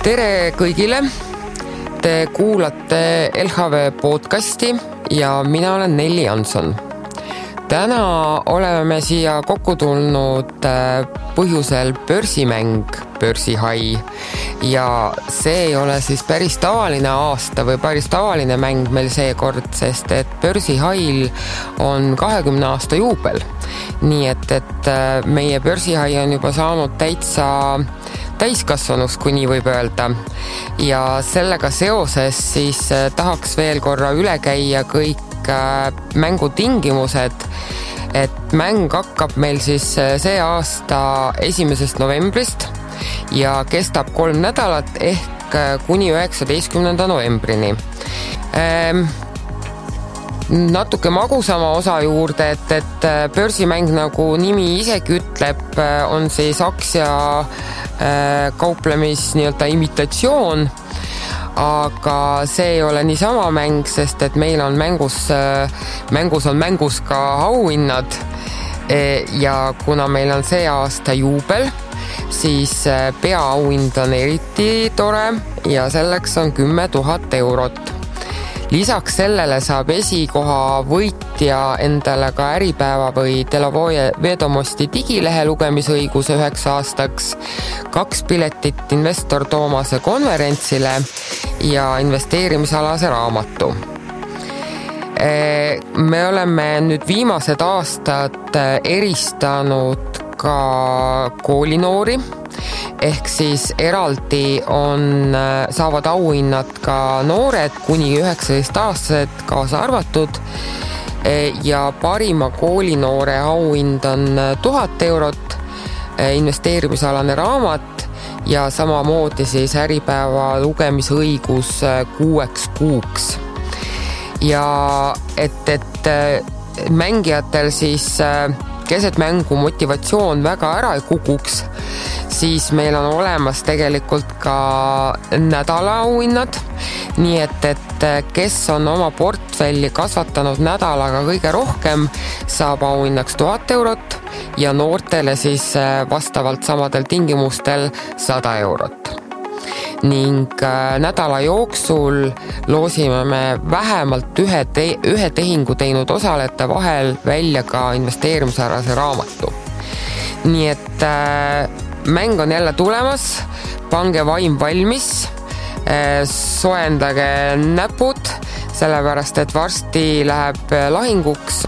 Tere kõigile! Te kuulate LHV podcasti ja mina olen Nelli Jansson. Täna oleme siia kokku tulnud põhjusel börsimäng Börsihai ja see ei ole siis päris tavaline aasta või päris tavaline mäng meil seekord, sest et Börsihail on 20 aasta juubel. Nii et meie Börsihai on juba saanud täiskasvanus, kui nii võib öelda. Ja sellega seoses siis tahaks veel korra üle käia kõik mängutingimused, et mäng hakkab meil siis see aasta 1. novembrist ja kestab 3 nädalat ehk kuni 19. novembrini. Natuke magusama osa juurde, et börsimäng, nagu nimi isegi ütleb, on siis aktsia kauplemis nii-öelda imitatsioon, aga see ei ole niisama mäng, sest et meil on mängus ka auhinnad ja kuna meil on see aasta juubel, siis peaauhind on eriti tore ja selleks on 10 000 eurot. Lisaks sellele saab esikoha võitja endale ka Äripäeva või Delovoje Vedomosti digilehe lugemisõiguse 9 aastaks, 2 piletit investor Toomase konverentsile ja investeerimisalase raamatu. Me oleme nüüd viimased aastad eristanud ka koolinoori, ehk siis eraldi saavad auhinnad ka noored kuni 19-aastased kaasa arvatud ja parima koolinoore auhind on 1000 eurot, investeerimisalane raamat ja samamoodi siis Äripäeva lugemisõigus 6 kuuks. Ja et mängijatel siis keset mängu motivatsioon väga ära ei kukuks, siis meil on olemas tegelikult ka nädala auhinnad, nii et kes on oma portfelli kasvatanud nädalaga kõige rohkem, saab auhinnaks 1000 eurot ja noortele siis vastavalt samadel tingimustel 100 eurot. Ning nädala jooksul loosime me vähemalt ühe tehingu teinud osalejate vahel välja ka investeerimisalase raamatu. Nii et mäng on jälle tulemas, pange vaim valmis, soendage näpud, sellepärast et varsti läheb lahinguks,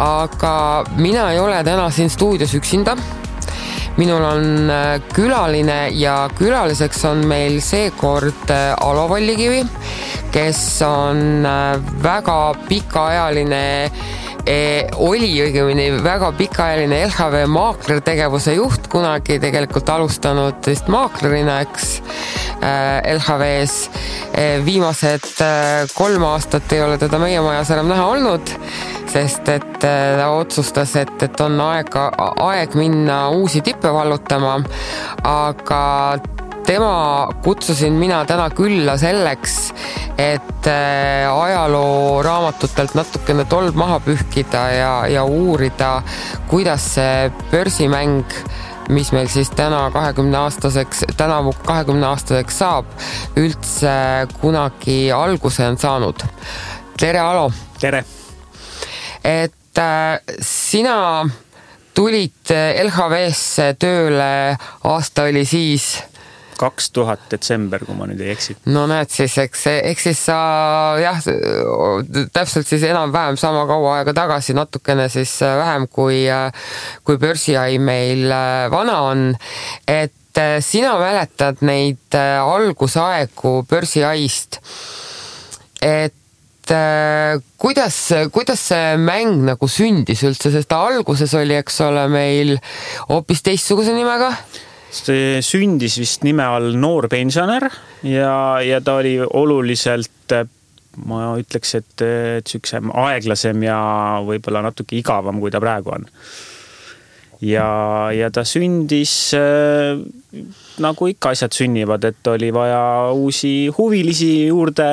aga mina ei ole täna siin stuudios üksinda. Minul on külaline ja külaliseks on meil seekord Alo Vallikivi, kes on väga pikaajaline väga pikaajaline LHV maaklertegevuse juht, kunagi tegelikult alustanud vist maaklerina, eks LHV-s. Viimased 3 aastat ei ole teda meie majas enam näha olnud, sest et ta otsustas, et on aeg minna uusi tippe vallutama, aga tema kutsusin mina täna külla selleks, et ajaloo raamatutelt natukene tolb maha pühkida ja uurida, kuidas see börsimäng, mis meil siis tänavu 20 aastaseks saab, üldse kunagi alguse on saanud. Tere, Alo! Tere! Et sina tulid LHV-sse tööle, aasta oli siis 2000 detsember, kui ma nüüd ei eksi. No näed siis, eks siis sa täpselt siis enam-vähem sama kaua aega tagasi, natukene siis vähem kui Börsihai meil vana on, et sina mäletad neid algusaegu Börsihaist, et kuidas see mäng nagu sündis üldse, sest alguses oli, eks ole, meil hoopis teistsuguse nimega? See sündis vist nime all Noor pensionär ja ta oli oluliselt, ma ütleks, et süksem aeglasem ja võib-olla natuke igavam, kui ta praegu on. Ja ta sündis nagu ikka asjad sünnivad, et oli vaja uusi huvilisi juurde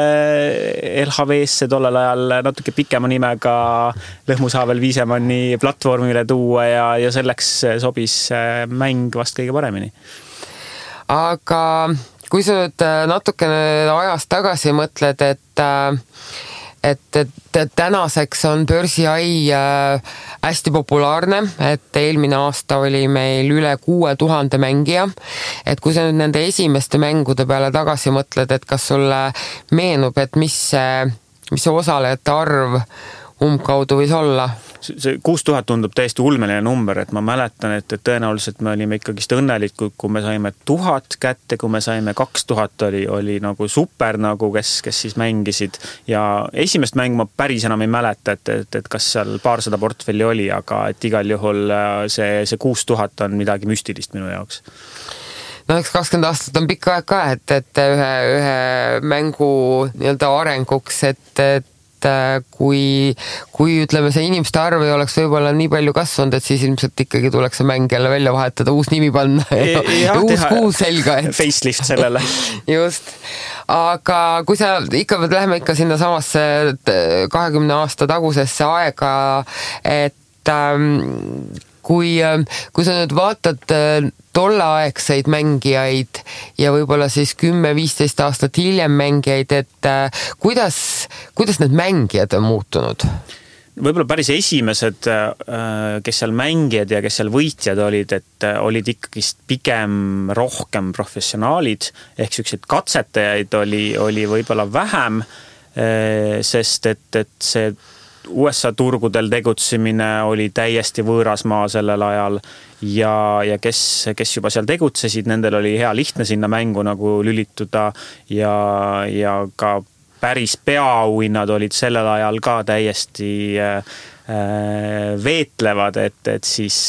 LHV-sse tollel ajal natuke pikema nimega Lõhmusaavel Viisemanni platvormile tuua ja selleks sobis mäng vast kõige paremini. Aga kui sa nüüd natukene ajas tagasi mõtled, et tänaseks on börsihai hästi populaarne, et eelmine aasta oli meil üle 6000 mängija, et kui sa nüüd nende esimeste mängude peale tagasi mõtled, et kas sulle meenub, et mis see osalejate arv umbkaudu võis olla? See 6000 tundub täiesti ulmeline number, et ma mäletan, et tõenäoliselt me olime ikkagist õnnelikud, kui me saime 1000 kätte, kui me saime 2000 oli nagu super, nagu kes siis mängisid ja esimest mängu ma päris enam ei mäleta, et kas seal paarsada portfelli oli, aga et igal juhul see 6000 on midagi müstilist minu jaoks. No eks 20 aastat on pikk aeg ka, et ühe mängu nii-öelda arenguks, et kui ütleme, see inimeste arv ei oleks võib-olla nii palju kasvanud, et siis ilmselt ikkagi tuleks see mäng jälle välja vahetada, uus nimi panna ja uus kuu selga. Facelift sellele. Just. Aga kui sa ikka läheme ikka sinna samasse 20 aasta tagusesse aega, et kui sa nüüd vaatad tolleaegseid mängijaid ja võib-olla siis 10-15 aastat hiljem mängijaid, et kuidas need mängijad on muutunud? Võib-olla päris esimesed, kes seal mängijad ja kes seal võitjad olid, et olid ikkagist pigem rohkem professionaalid, ehk sellised katsetajaid oli võib-olla vähem, sest et see USA turgudel tegutsemine oli täiesti võõras maa sellel ajal ja kes juba seal tegutsesid, nendel oli hea lihtne sinna mängu nagu lülituda ja ka päris peaauhinnad olid sellel ajal ka täiesti veetlevad, et siis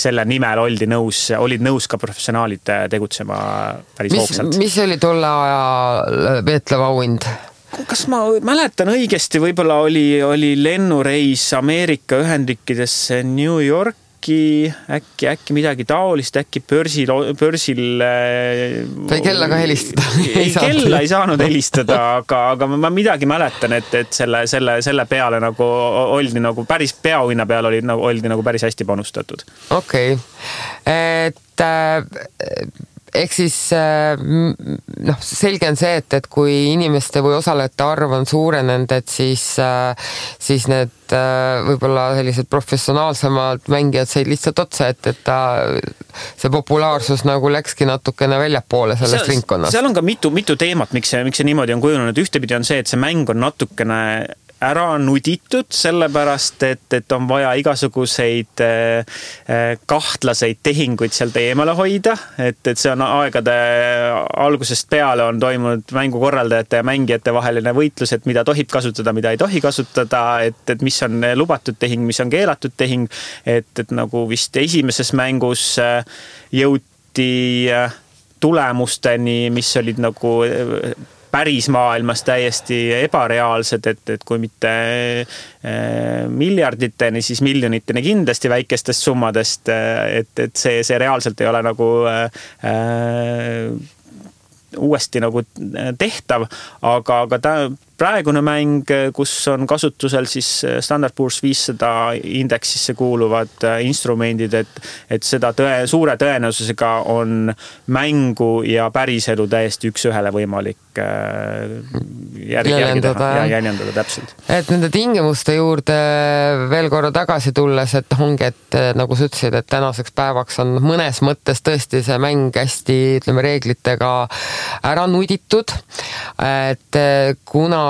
selle nimel olid nõus ka professionaalid tegutsema päris hoogsalt. Mis oli tolle aja veetlev auhind? Kas ma mäletan õigesti, võib-olla oli lennureis Ameerika Ühendriikidesse New Yorki, äkki midagi taolist, äkki börsil sai kellaga helistada? Kella ei saanud helistada, aga ma midagi mäletan, et selle peale nagu oldi nagu päris peaauhinna peal oldi nagu päris hästi panustatud. Okei. Et ehk siis selge on see, et kui inimeste või osalejate arv on suurenenud, et siis need võib-olla sellised professionaalsemad mängijad said lihtsalt otsa, et see populaarsus nagu läkski natukene väljapoole sellest ringkonnast. Seal on ka mitu teemat, miks see niimoodi on kujunenud. Ühtepidi on see, et see mäng on natukene ära nuditud, sellepärast, et on vaja igasuguseid kahtlaseid tehinguid sealt eemale hoida, et see on aegade algusest peale on toimunud mängukorraldajate ja mängijate vaheline võitlus, et mida tohib kasutada, mida ei tohi kasutada, et mis on lubatud tehing, mis on keelatud tehing, et nagu vist esimeses mängus jõuti tulemusteni, mis olid nagu päris maailmas täiesti ebareaalsed, et kui mitte miljarditeni, siis miljoniteni kindlasti väikestest summadest, et see reaalselt ei ole nagu uuesti nagu tehtav, aga praegune mäng, kus on kasutusel siis Standard Poor's 500 indeksisse kuuluvad instrumendid, et seda suure tõenäosusega on mängu ja päriselu täiesti üks ühele võimalik jäljendada täpselt. Et nende tingimuste juurde veel korra tagasi tulles, et ongi, et nagu sa ütlesid, et tänaseks päevaks on mõnes mõttes tõesti see mäng hästi, ütleme, reeglitega ära nuditud, et kunagi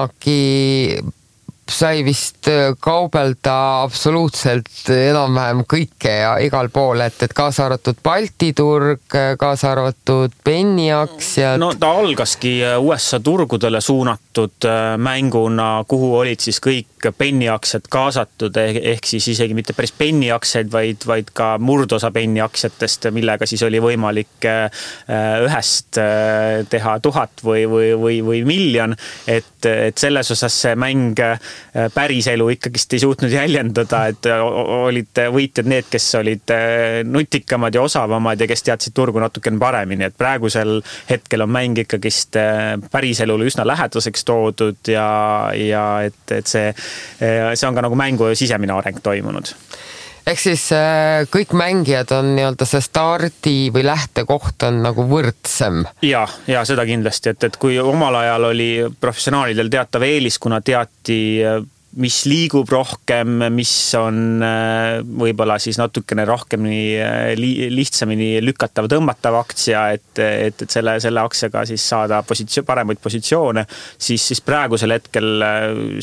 sai vist kaubelda absoluutselt enam-vähem kõike ja igal pool, et kaasa arvatud Balti turg, kaasa arvatud penniaktsiad. No ta algaski USA turgudele suunatud mänguna, kuhu olid siis kõik penniaktsiad kaasatud, ehk siis isegi mitte päris penniaktsiaid, vaid ka murdosa penniaktsiatest, millega siis oli võimalik ühest teha 1000 või miljon, et selles osas see mäng päris elu ikkagist ei suutnud jäljendada, et olid võitjad need, kes olid nutikamad ja osavamad ja kes teadsid turgu natukene paremini, et praegusel hetkel on mäng ikkagist päris elule üsna lähedaseks toodud ja et see on ka nagu mängu sisemine areng toimunud. Ehk siis kõik mängijad on nii-öelda see stardi või lähtekoht on nagu võrdsem. Ja seda kindlasti, et kui omal ajal oli professionaalidel teatav eelis, kuna teati mis liigub rohkem, mis on võib-olla siis natukene rohkem lihtsamini lükatav, tõmmatav aktsia, et selle aktsiaga siis saada paremaid positsioone, siis praegusel hetkel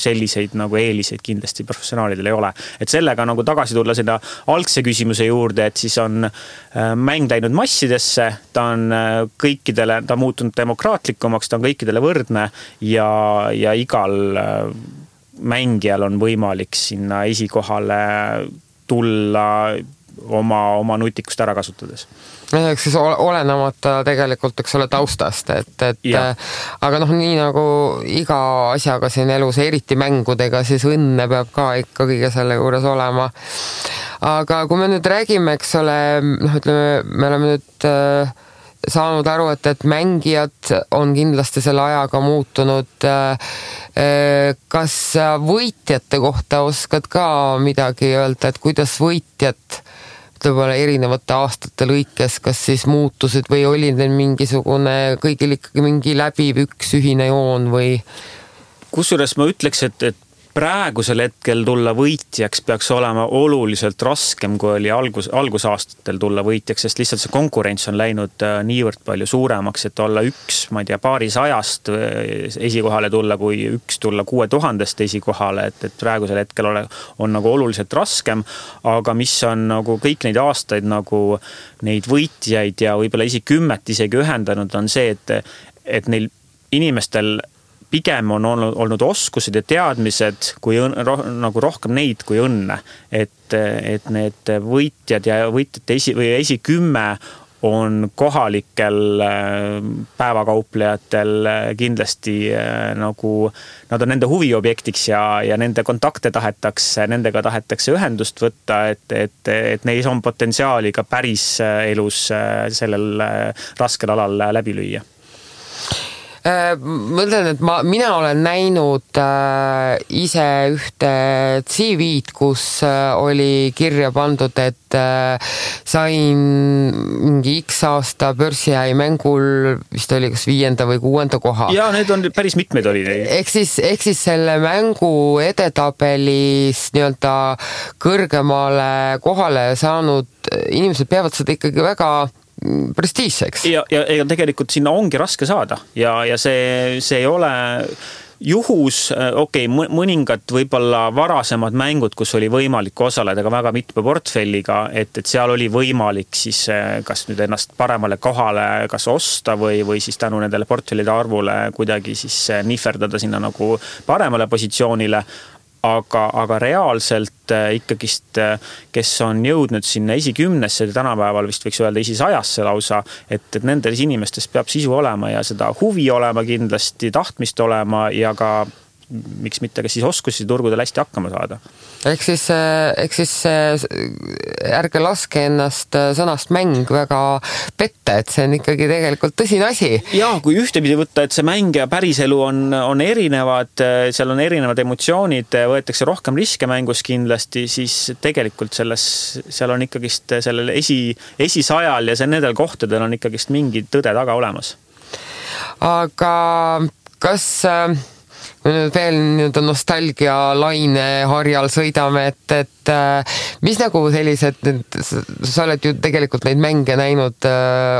selliseid nagu eeliseid kindlasti professionaalidel ei ole. Et sellega nagu tagasi tulla seda algse küsimuse juurde, et siis on mäng läinud massidesse, ta on muutunud demokraatlikumaks, ta on kõikidele võrdne ja igal mängijal on võimalik sinna esikohale tulla oma nutikust ära kasutades. Eks siis olenemata tegelikult, eks ole, taustast, aga nii nagu iga asjaga siin elus, eriti mängudega, siis õnne peab ka ikka kõige selle juures olema. Aga kui me nüüd räägime, eks ole, ütleme, me oleme nüüd saanud aru, et mängijad on kindlasti selle ajaga muutunud. Kas võitjate kohta oskad ka midagi öelda, et kuidas võitjad võib-olla erinevate aastate lõikes, kas siis muutusid või oli neil mingisugune kõigil ikkagi mingi läbiv üks ühine joon või? Kusjuures ma ütleks, et praegusel hetkel tulla võitjaks peaks olema oluliselt raskem, kui oli algusaastatel tulla võitjaks, sest lihtsalt see konkurents on läinud niivõrd palju suuremaks, et olla paarisajast esikohale tulla, kui tulla 6000 esikohale, et praegusel hetkel on nagu oluliselt raskem, aga mis on nagu kõik neid aastaid nagu neid võitjaid ja võib-olla isegi ühendanud on see, et neil inimestel pigem on olnud oskused ja teadmised kui nagu rohkem neid kui õnne, et need võitjad ja võitjate esikümme on kohalikel päevakauplejatel kindlasti nagu nad on nende huviobjektiks ja nende kontakte nendega tahetakse ühendust võtta, et neis on potentsiaali ka päris elus sellel raskel alal läbi lüüa. Mõtlen, et mina olen näinud ise ühte CV-d, kus oli kirja pandud, et sain mingi X aasta börsihäi mängul, vist oli kas 5. või 6. koha. Ja need on päris mitmeid oli. Ehk siis selle mängu edetabelis nii-öelda kõrgemale kohale saanud inimesed peavad seda ikkagi väga prestiižseks. Ja tegelikult sinna ongi raske saada ja see ei ole juhus, mõningad võib-olla varasemad mängud, kus oli võimalik osaleda ka väga mitme portfelliga, et seal oli võimalik siis kas nüüd ennast paremale kohale kas osta või siis tänu nendele portfellide arvule kuidagi siis nihverdada sinna nagu paremale positsioonile. Aga reaalselt ikkagist, kes on jõudnud sinna esikümnesse, tänapäeval vist võiks öelda esisajasse lausa, et nendes inimestes peab sisu olema ja seda huvi olema kindlasti, tahtmist olema ja ka miks mitte ka siis oskusi turgudel hästi hakkama saada. Ehk siis ärge laske ennast sõnast mäng väga petta, et see on ikkagi tegelikult tõsine asi. Ja kui ühtepidi võtta, et see mäng ja päriselu on erinevad, seal on erinevad emotsioonid, võetakse rohkem riske mängus kindlasti, siis tegelikult seal on ikkagist sellel esisajal ja nendel kohtadel on ikkagist mingi tõde taga olemas. Aga kas veel nüüd nostalgia laine harjal sõidame, et mis nagu sellised, sa oled ju tegelikult neid mänge näinud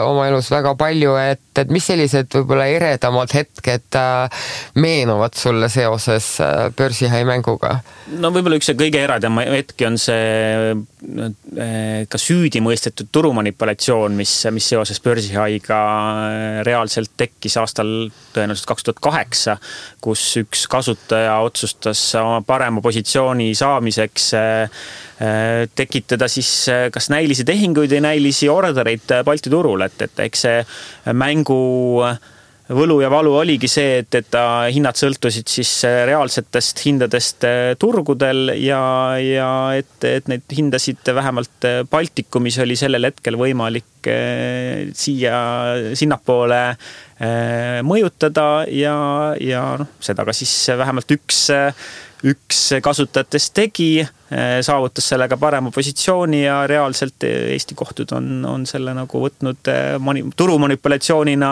oma elus väga palju, et mis sellised võib-olla eredamad hetked meenuvad sulle seoses börsihäi mänguga? No võib-olla üks kõige eredam hetki on see ka süüdi mõistetud turumanipulatsioon, mis seoses börsihaiga reaalselt tekkis aastal tõenäoliselt 2008, kus üks kasutaja otsustas oma parema positsiooni saamiseks tekitada siis kas näilisi tehinguid või näilisi ordereid Balti turul, et eks see mängu võlu ja valu oligi see, et hinnad sõltusid siis reaalsetest hindadest turgudel ja et neid hindasid vähemalt Baltikumis oli sellel hetkel võimalik sinnapoole mõjutada ja seda ka siis vähemalt üks kasutajatest tegi, saavutas sellega parema positsiooni ja reaalselt Eesti kohtud on selle nagu võtnud turumanipulatsioonina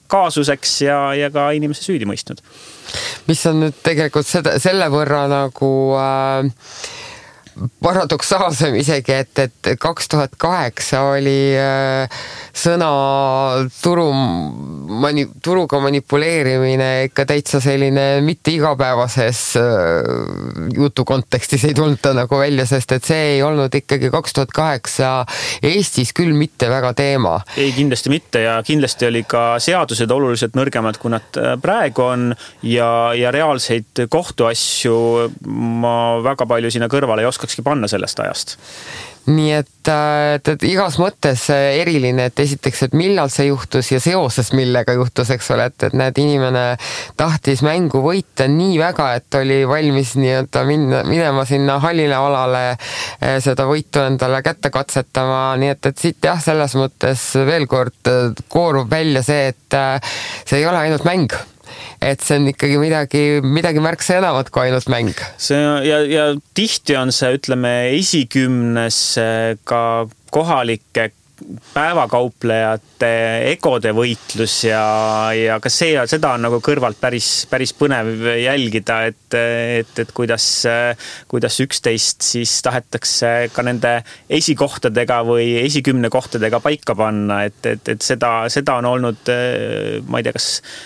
kaasuseks ja ka inimese süüdi mõistnud. Mis on nüüd tegelikult selle võrra nagu paradoksaalsem isegi, et 2008 oli sõna turuga manipuleerimine ikka täitsa selline mitte igapäevases jutu kontekstis ei tulnud ta nagu välja, sest et see ei olnud ikkagi 2008 Eestis küll mitte väga teema. Ei, kindlasti mitte ja kindlasti oli ka seadused oluliselt nõrgemad, kui nad praegu on ja reaalseid kohtuasju ma väga palju sinna kõrvale ei oskakski panna sellest ajast. Nii et igas mõttes eriline, et esiteks, et millal see juhtus ja seoses millega juhtus, eks ole, et näed, inimene tahtis mängu võita nii väga, et oli valmis nii-öelda minema sinna hallile alale seda võitu endale kätte katsetama, nii et siit jah, selles mõttes veel kord koorub välja see, et see ei ole ainult mäng. Et see on ikkagi midagi märksa enamat kui ainult mäng. Ja tihti on see, ütleme, esikümnes ka kohalike päevakauplejate egode võitlus ja ka seda on nagu kõrvalt päris põnev jälgida, et kuidas üksteist siis tahetakse ka nende esikohtadega või esikümne kohtadega paika panna, et seda on olnud, ma ei tea,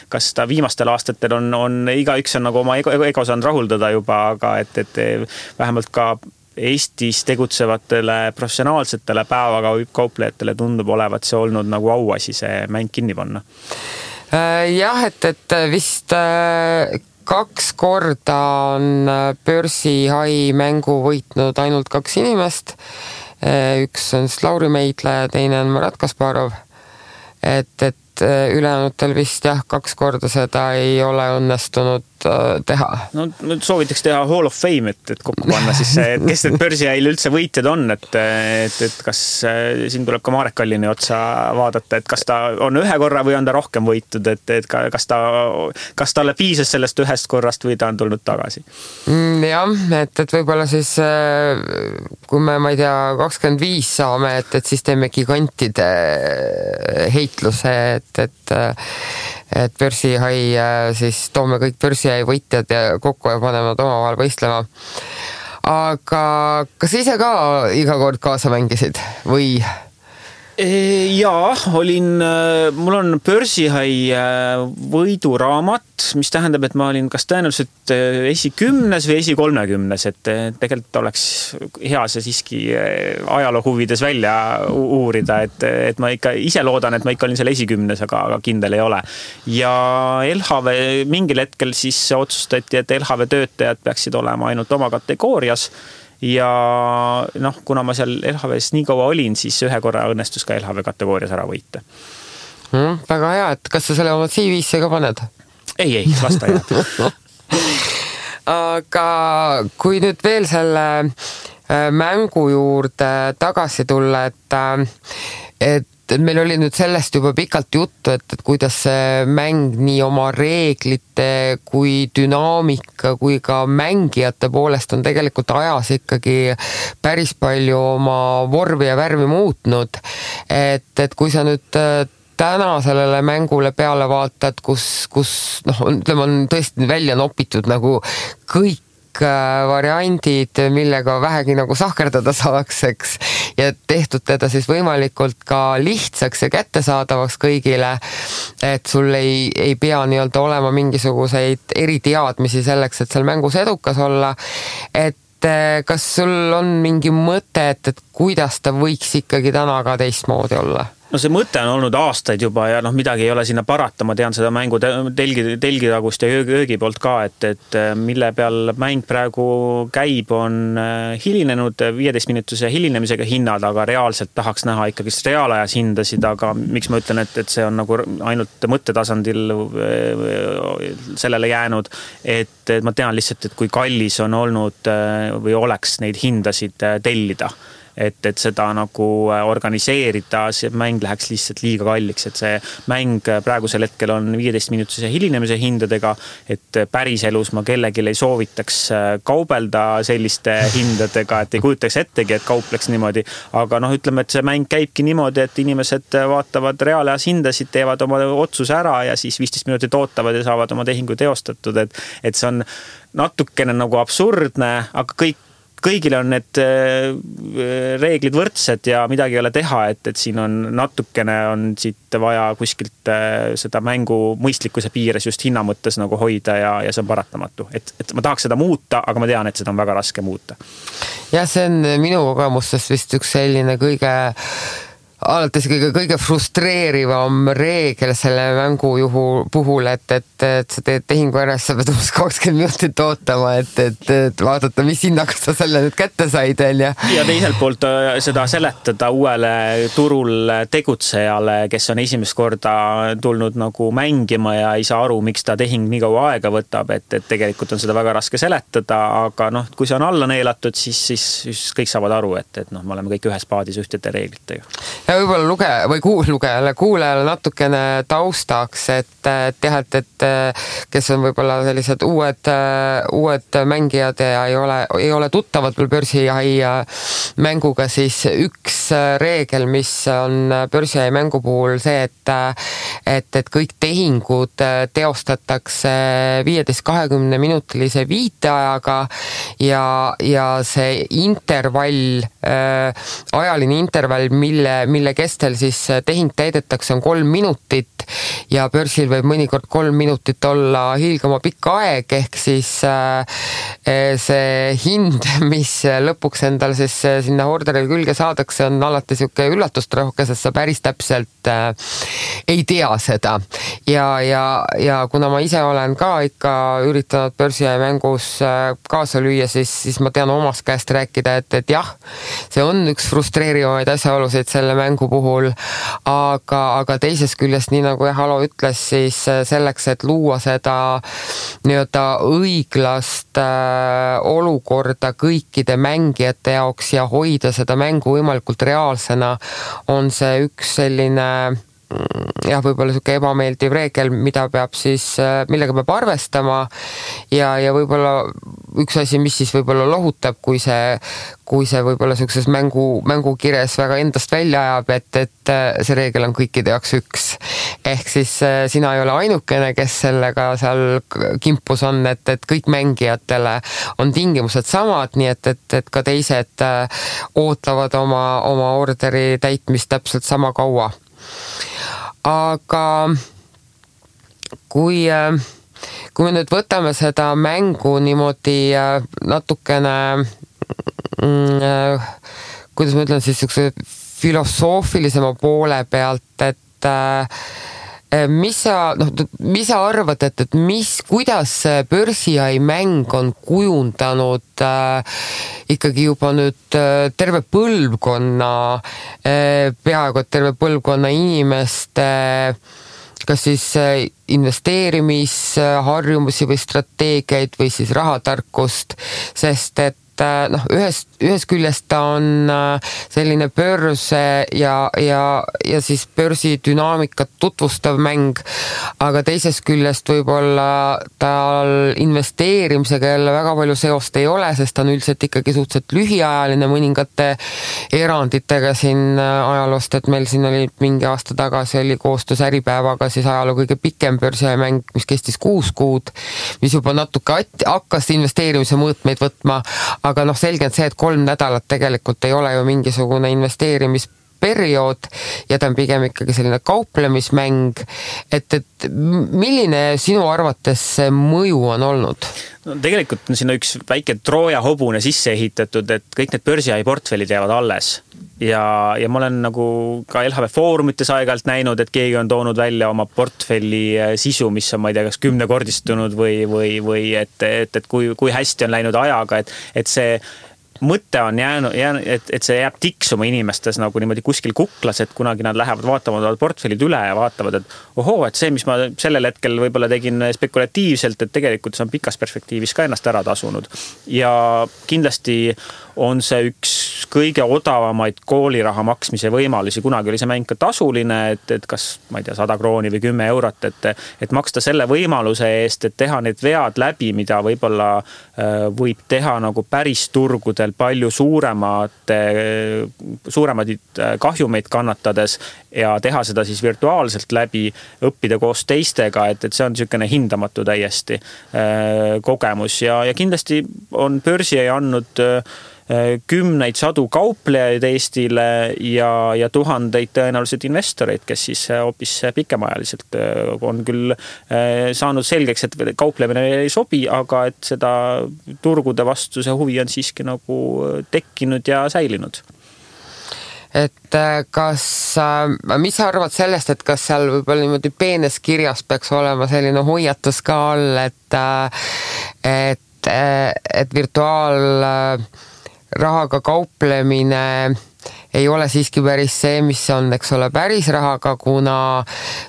kas ta viimastel aastatel on igaüks on nagu oma ego saanud rahuldada juba, aga et vähemalt ka Eestis tegutsevatele professionaalsetele päevakauplejatele tundub olevat see olnud nagu auasi see mäng kinni panna. Jah, et vist 2 korda on börsihai mängu võitnud ainult 2 inimest. Üks on Lauri Meidla ja teine on Marat Kasparov. Et ülejäänutel vist jah, 2 korda seda ei ole õnnestunud teha. No soovitaks teha Hall of Fame, et kokku panna siis see, et kes need börsihäil üldse võitjad on, et kas siin tuleb ka Marek Kallini otsa vaadata, et kas ta on 1 korra või on ta rohkem võitud, et kas talle piisas sellest 1 korrast või ta on tulnud tagasi? Jah, et võib-olla siis kui me, ma ei tea, 25 saame, et siis teeme gigantide heitluse, et börsihai siis toome kõik börsihai võitjad ja kokku ja paneme omavahel võistlema. Aga kas ise ka iga kord kaasa mängisid või? Jaa, mul on börsihai võiduraamat, mis tähendab, et ma olin kas tõenäoliselt esi-10 või esi-30, et tegelikult oleks hea see siiski ajaloo huvides välja uurida, et ma ikka ise loodan, et ma ikka olin seal esi-10, aga kindel ei ole. Ja LHV mingil hetkel siis otsustati, et LHV töötajad peaksid olema ainult oma kategoorias. Ja kuna ma seal LHV-s nii kaua olin, siis 1 korra õnnestus ka LHV kategoorias ära võita. Väga hea, et kas sa selle oma CV-sse ka paned? Ei, lasta jääb. Aga kui nüüd veel selle mängu juurde tagasi tulla, et meil oli nüüd sellest juba pikalt juttu, et kuidas see mäng nii oma reeglite kui dünaamika kui ka mängijate poolest on tegelikult ajas ikkagi päris palju oma vormi ja värvi muutnud. Et kui sa nüüd täna sellele mängule peale vaatad, kus on tõesti välja nopitud nagu kõik variandid, millega vähegi nagu sahkerdada saaks, eks, ja tehtud teda siis võimalikult ka lihtsaks ja kättesaadavaks kõigile, et sul ei pea nii-öelda olema mingisuguseid eriteadmisi selleks, et seal mängus edukas olla, et kas sul on mingi mõte, et kuidas ta võiks ikkagi täna ka teistmoodi olla? No see mõte on olnud aastaid juba ja midagi ei ole sinna parata, ma tean seda mängu telgitagust ja öögi poolt ka, et mille peal mäng praegu käib, on hilinenud 15-minutise hilinemisega hinnad, aga reaalselt tahaks näha ikkagi reaalajas hindasid, aga miks ma ütlen, et see on nagu ainult mõttetasandil sellele jäänud, et ma tean lihtsalt, et kui kallis on olnud või oleks neid hindasid tellida, et seda nagu organiseerida, see mäng läheks lihtsalt liiga kalliks, et see mäng praegusel hetkel on 15-minutise hilinemise hindadega, et päris elus ma kellelgi ei soovitaks kaubelda selliste hindadega, et ei kujutaks ettegi, et kaupleks niimoodi, aga ütleme, et see mäng käibki niimoodi, et inimesed vaatavad reaalajas hindasid, teevad oma otsuse ära ja siis 15 minutit ootavad ja saavad oma tehingu teostatud, et see on natukene nagu absurdne, aga kõigil on need reeglid võrdsed ja midagi ei ole teha, et siin on natukene on siit vaja kuskilt seda mängu mõistlikkuse piires just hinna mõttes nagu hoida ja see on paratamatu. Et ma tahaks seda muuta, aga ma tean, et seda on väga raske muuta. Ja see on minu kogemustest vist üks selline alates kõige frustreerivam reegel selle mängu puhul, et sa teed tehingu ära, sa pead 20 minutit ootama, et vaadata, mis hinnaga sa selle nüüd kätte said. Ja teiselt poolt seda seletada uuele turul tegutsejale, kes on esimest korda tulnud nagu mängima ja ei saa aru, miks ta tehing nii kaua aega võtab, et tegelikult on seda väga raske seletada, aga kui see on alla neelatud, siis kõik saavad aru, et me oleme kõik ühes paadis ühtede reeglitega. Ja võib-olla kuulajale natukene taustaks, et kes on võib-olla sellised uued mängijad ja ei ole tuttavad veel börsijahi mänguga, siis üks reegel, mis on börsijahi mängu puhul see, et kõik tehingud teostatakse 15-20 minutilise viiteajaga ja see intervall, ajaline intervall, mille kestel siis tehing täidetakse, on 3 minutit ja börsil võib mõnikord 3 minutit olla hiilgama pikk aeg, ehk siis see hind, mis lõpuks endal siis sinna orderil külge saadakse, on alati siuke üllatustrohke, sest sa päris täpselt ei tea seda. Ja kuna ma ise olen ka ikka üritanud börsijahi mängus kaasa lüüa, siis ma tean omast käest rääkida, et jah, see on üks frustreerivaid asjaolusid selle mängu puhul, aga teisest küljest, nii nagu Halo ütles, siis selleks, et luua seda nii-öelda õiglast olukorda kõikide mängijate jaoks ja hoida seda mängu võimalikult reaalsena, on see üks selline võib-olla siuke ebameeldiv reegel, millega peab arvestama ja võib-olla üks asi, mis siis võib-olla lohutab, kui see võib-olla siukses mängukires väga endast välja ajab, et see reegel on kõikide jaoks üks. Ehk siis sina ei ole ainukene, kes sellega seal kimpus on, et kõik mängijatele on tingimused samad, nii et ka teised ootavad oma orderi täitmist täpselt sama kaua. Aga kui me nüüd võtame seda mängu niimoodi natukene, kuidas ma ütlen siis filosoofilisema poole pealt, et mis sa arvad, et kuidas börsijahi mäng on kujundanud ikkagi juba nüüd terve põlvkonna, peaaegu et terve põlvkonna inimeste kas siis investeerimisharjumusi või strateegiaid või siis rahatarkust, sest et ühest küljest ta on selline börs ja siis börsi dünaamikat tutvustav mäng, aga teisest küljest võib-olla tal investeerimisega jälle väga palju seost ei ole, sest ta on üldiselt ikkagi suhteliselt lühiajaline mõningate eranditega siin ajaloost, et meil siin oli mingi aasta tagasi oli koostöös Äripäevaga siis ajaloo kõige pikem börsijahi mäng, mis kestis 6 kuud, mis juba natuke hakkas investeerimise mõõtmeid võtma, aga selge on see, et 3 nädalat tegelikult ei ole ju mingisugune investeerimis periood ja ta on pigem ikkagi selline kauplemismäng, et milline sinu arvates see mõju on olnud? No, tegelikult on sinna üks väike Trooja hobune sisse ehitatud, et kõik need börsiai portfellid jäävad alles. Ja ma olen nagu ka LHV foorumites aegalt näinud, et keegi on toonud välja oma portfelli sisu, mis on, ma ei tea, kas 10-kordistunud või et kui hästi on läinud ajaga, et see mõte on jäänud, et see jääb tiksuma inimestes nagu niimoodi kuskil kuklas, et kunagi nad lähevad vaatama portfellid üle ja vaatavad, et et see, mis ma sellel hetkel võib-olla tegin spekulatiivselt, et tegelikult see on pikas perspektiivis ka ennast ära tasunud. Ja kindlasti on see üks kõige odavamaid kooliraha maksmise võimalusi. Kunagi oli see mäng ka tasuline, et kas, ma ei tea, 100 krooni või 10 eurot, et maksta selle võimaluse eest, et teha need vead läbi, mida võib-olla võib teha nagu päris turgudel palju suuremaid kahjumeid kannatades ja teha seda siis virtuaalselt läbi, õppida koos teistega, et see on niisugune hindamatu täiesti kogemus ja kindlasti on börsi andnud kümneid sadu kauplejaid Eestile ja tuhandeid tõenäoliselt investoreid, kes siis hoopis pikemaajaliselt on küll saanud selgeks, et kauplemine ei sobi, aga et seda turgude vastu see huvi on siiski nagu tekkinud ja säilinud. Et mis sa arvad sellest, et kas seal võib-olla niimoodi peenes kirjas peaks olema selline hoiatus ka all, et virtuaalrahaga kauplemine ei ole siiski päris see, mis on, eks ole, päris rahaga, kuna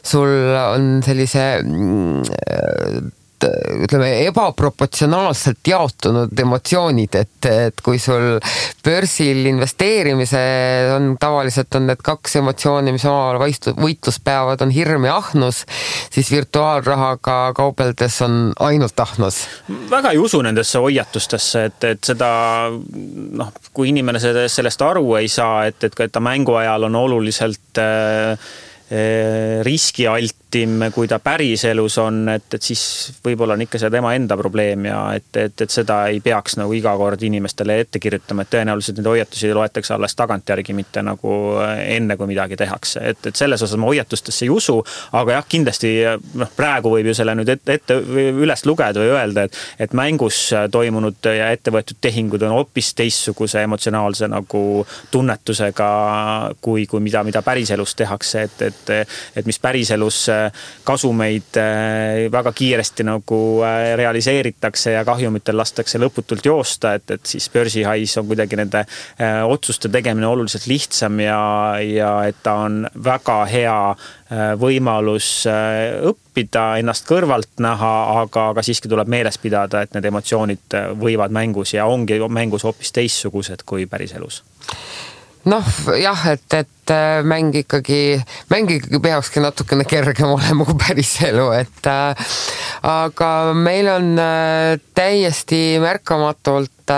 sul on sellise ütleme, ebaproportsionaalselt jaotunud emotsioonid, et kui sul börsil investeerimise on tavaliselt on need kaks emotsiooni, mis omavahel võitlus peavad, on hirm ja ahnus, siis virtuaalrahaga kaubeldes on ainult ahnus. Väga ei usu nendesse hoiatustesse, et seda, kui inimene sellest aru ei saa, et ta mängu ajal on oluliselt riskialtim, kui ta päris elus on, et siis võib-olla on ikka see tema enda probleem ja et seda ei peaks nagu iga kord inimestele ette kirjutama, et tõenäoliselt neid hoiatusi loetakse alles tagantjärgi, mitte nagu enne, kui midagi tehakse. Et selles osas ma hoiatustesse ei usu, aga jah, kindlasti praegu võib ju selle nüüd ette üles lugeda või öelda, et mängus toimunud ja ettevõetud tehingud on hoopis teistsuguse emotsionaalse nagu tunnetusega kui mida päris elus tehakse, et mis päris elus kasumeid väga kiiresti nagu realiseeritakse ja kahjumitel lastakse lõputult joosta, et siis börsihais on kuidagi nende otsuste tegemine oluliselt lihtsam ja et ta on väga hea võimalus õppida, ennast kõrvalt näha, aga siiski tuleb meeles pidada, et need emotsioonid võivad mängus ja ongi mängus hoopis teistsugused kui päris elus. Jah, et mäng ikkagi peakski natukene kergem olema kui päris elu, aga meil on täiesti märkamatult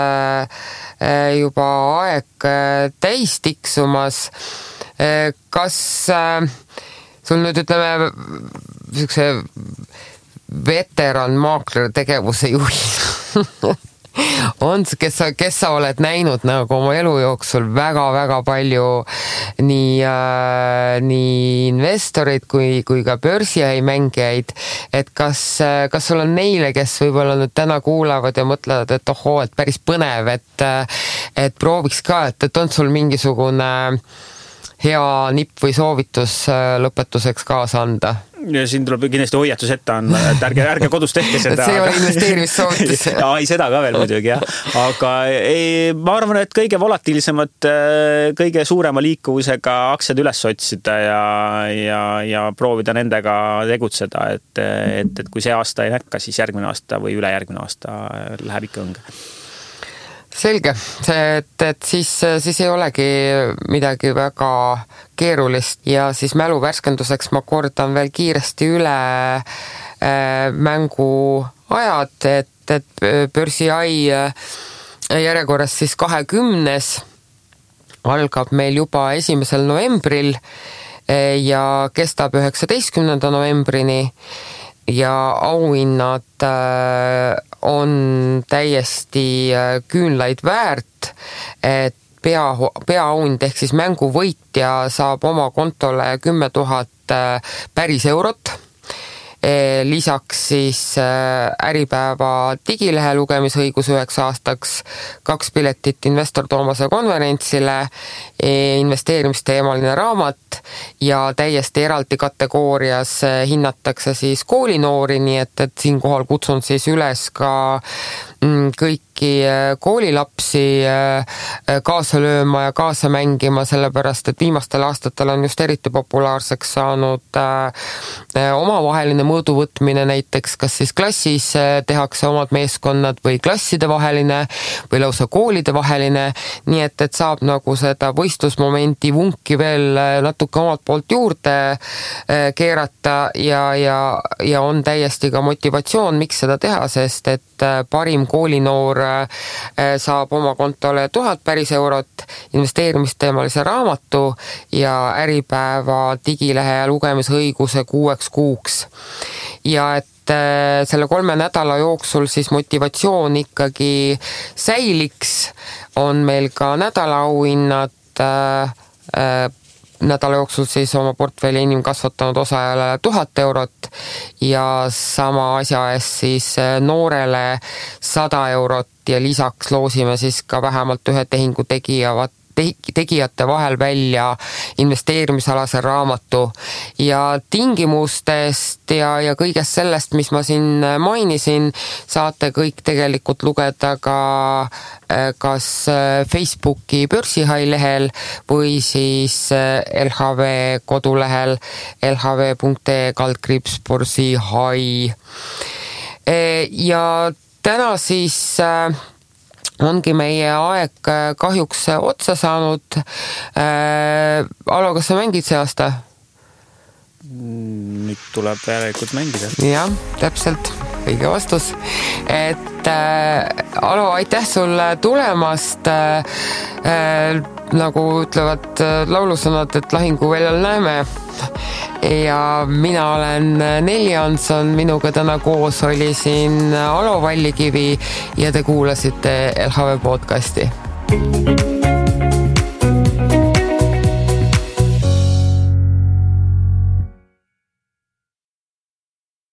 juba aeg täis tiksumas. Kas sul nüüd ütleme niisuguse veteran maakler tegevuse juhi on, kes sa oled näinud nagu oma elu jooksul väga-väga palju nii investoreid kui ka börsiai mängijaid, et kas sul on neile, kes võib-olla nüüd täna kuulavad ja mõtlevad, et et päris põnev, et prooviks ka, et on sul mingisugune hea nipp või soovitus lõpetuseks kaasa anda? Ja siin tuleb kindlasti hoiatus ette anda, et ärge kodus tehke seda. See ei ole investeerimissoovitus. Ei, seda ka veel muidugi, jah. Aga ma arvan, et kõige volatiilsemad, kõige suurema liikuvusega aktsiad üles otsida ja proovida nendega tegutseda, et kui see aasta ei näkka, siis järgmine aasta või ülejärgmine aasta läheb ikka õnge. Selge, et siis ei olegi midagi väga keerulist ja siis mälu värskenduseks ma kordan veel kiiresti üle mängu ajad, et börsiai järjekorras siis 20. algab meil juba 1. novembril ja kestab 19. novembrini ja auhinnad on täiesti küünlaid väärt, et peaauhind ehk siis mänguvõitja saab oma kontole 10 000 päris eurot. Lisaks siis Äripäeva digilehe lugemisõigus 9 aastaks, 2 piletit investor Toomase konverentsile, investeerimisteemaline raamat ja täiesti eraldi kategoorias hinnatakse siis koolinoori, nii et siinkohal kutsun siis üles ka kõiki koolilapsi kaasa lööma ja kaasa mängima, sellepärast et viimastel aastatel on just eriti populaarseks saanud omavaheline mõõduvõtmine, näiteks kas siis klassis tehakse omad meeskonnad või klasside vaheline või lausa koolide vaheline, nii et saab nagu seda võistlusmomenti vunki veel natuke omalt poolt juurde keerata ja on täiesti ka motivatsioon, miks seda teha, sest et parim koolinoor saab oma kontole 1000 päris eurot, investeerimisteemalise raamatu ja Äripäeva digilehe lugemisõiguse 6 kuuks. Ja et selle 3 nädala jooksul siis motivatsioon ikkagi säiliks, on meil ka nädalaauhinnad nädala jooksul siis oma portfelli enim kasvatanud osajale 1000 eurot ja sama asja eest siis noorele 100 eurot ja lisaks loosime siis ka vähemalt ühe tehingu tegijate vahel välja investeerimisalase raamatu ja tingimustest ja kõigest sellest, mis ma siin mainisin, saate kõik tegelikult lugeda ka kas Facebooki börsihai lehel või siis LHV kodulehel lhv.ee/börsihai. Ja täna siis ongi meie aeg kahjuks otsa saanud. Alo, kas sa mängid see aasta? Nüüd tuleb järelikult mängida. Jah, täpselt. Õige vastus. Alo, aitäh sulle tulemast. Nagu ütlevad laulusõnad, et lahinguväljal näeme. Ja mina olen Nelli Hanson, minuga täna koos oli siin Alo Vallikivi ja te kuulasite LHV podcasti.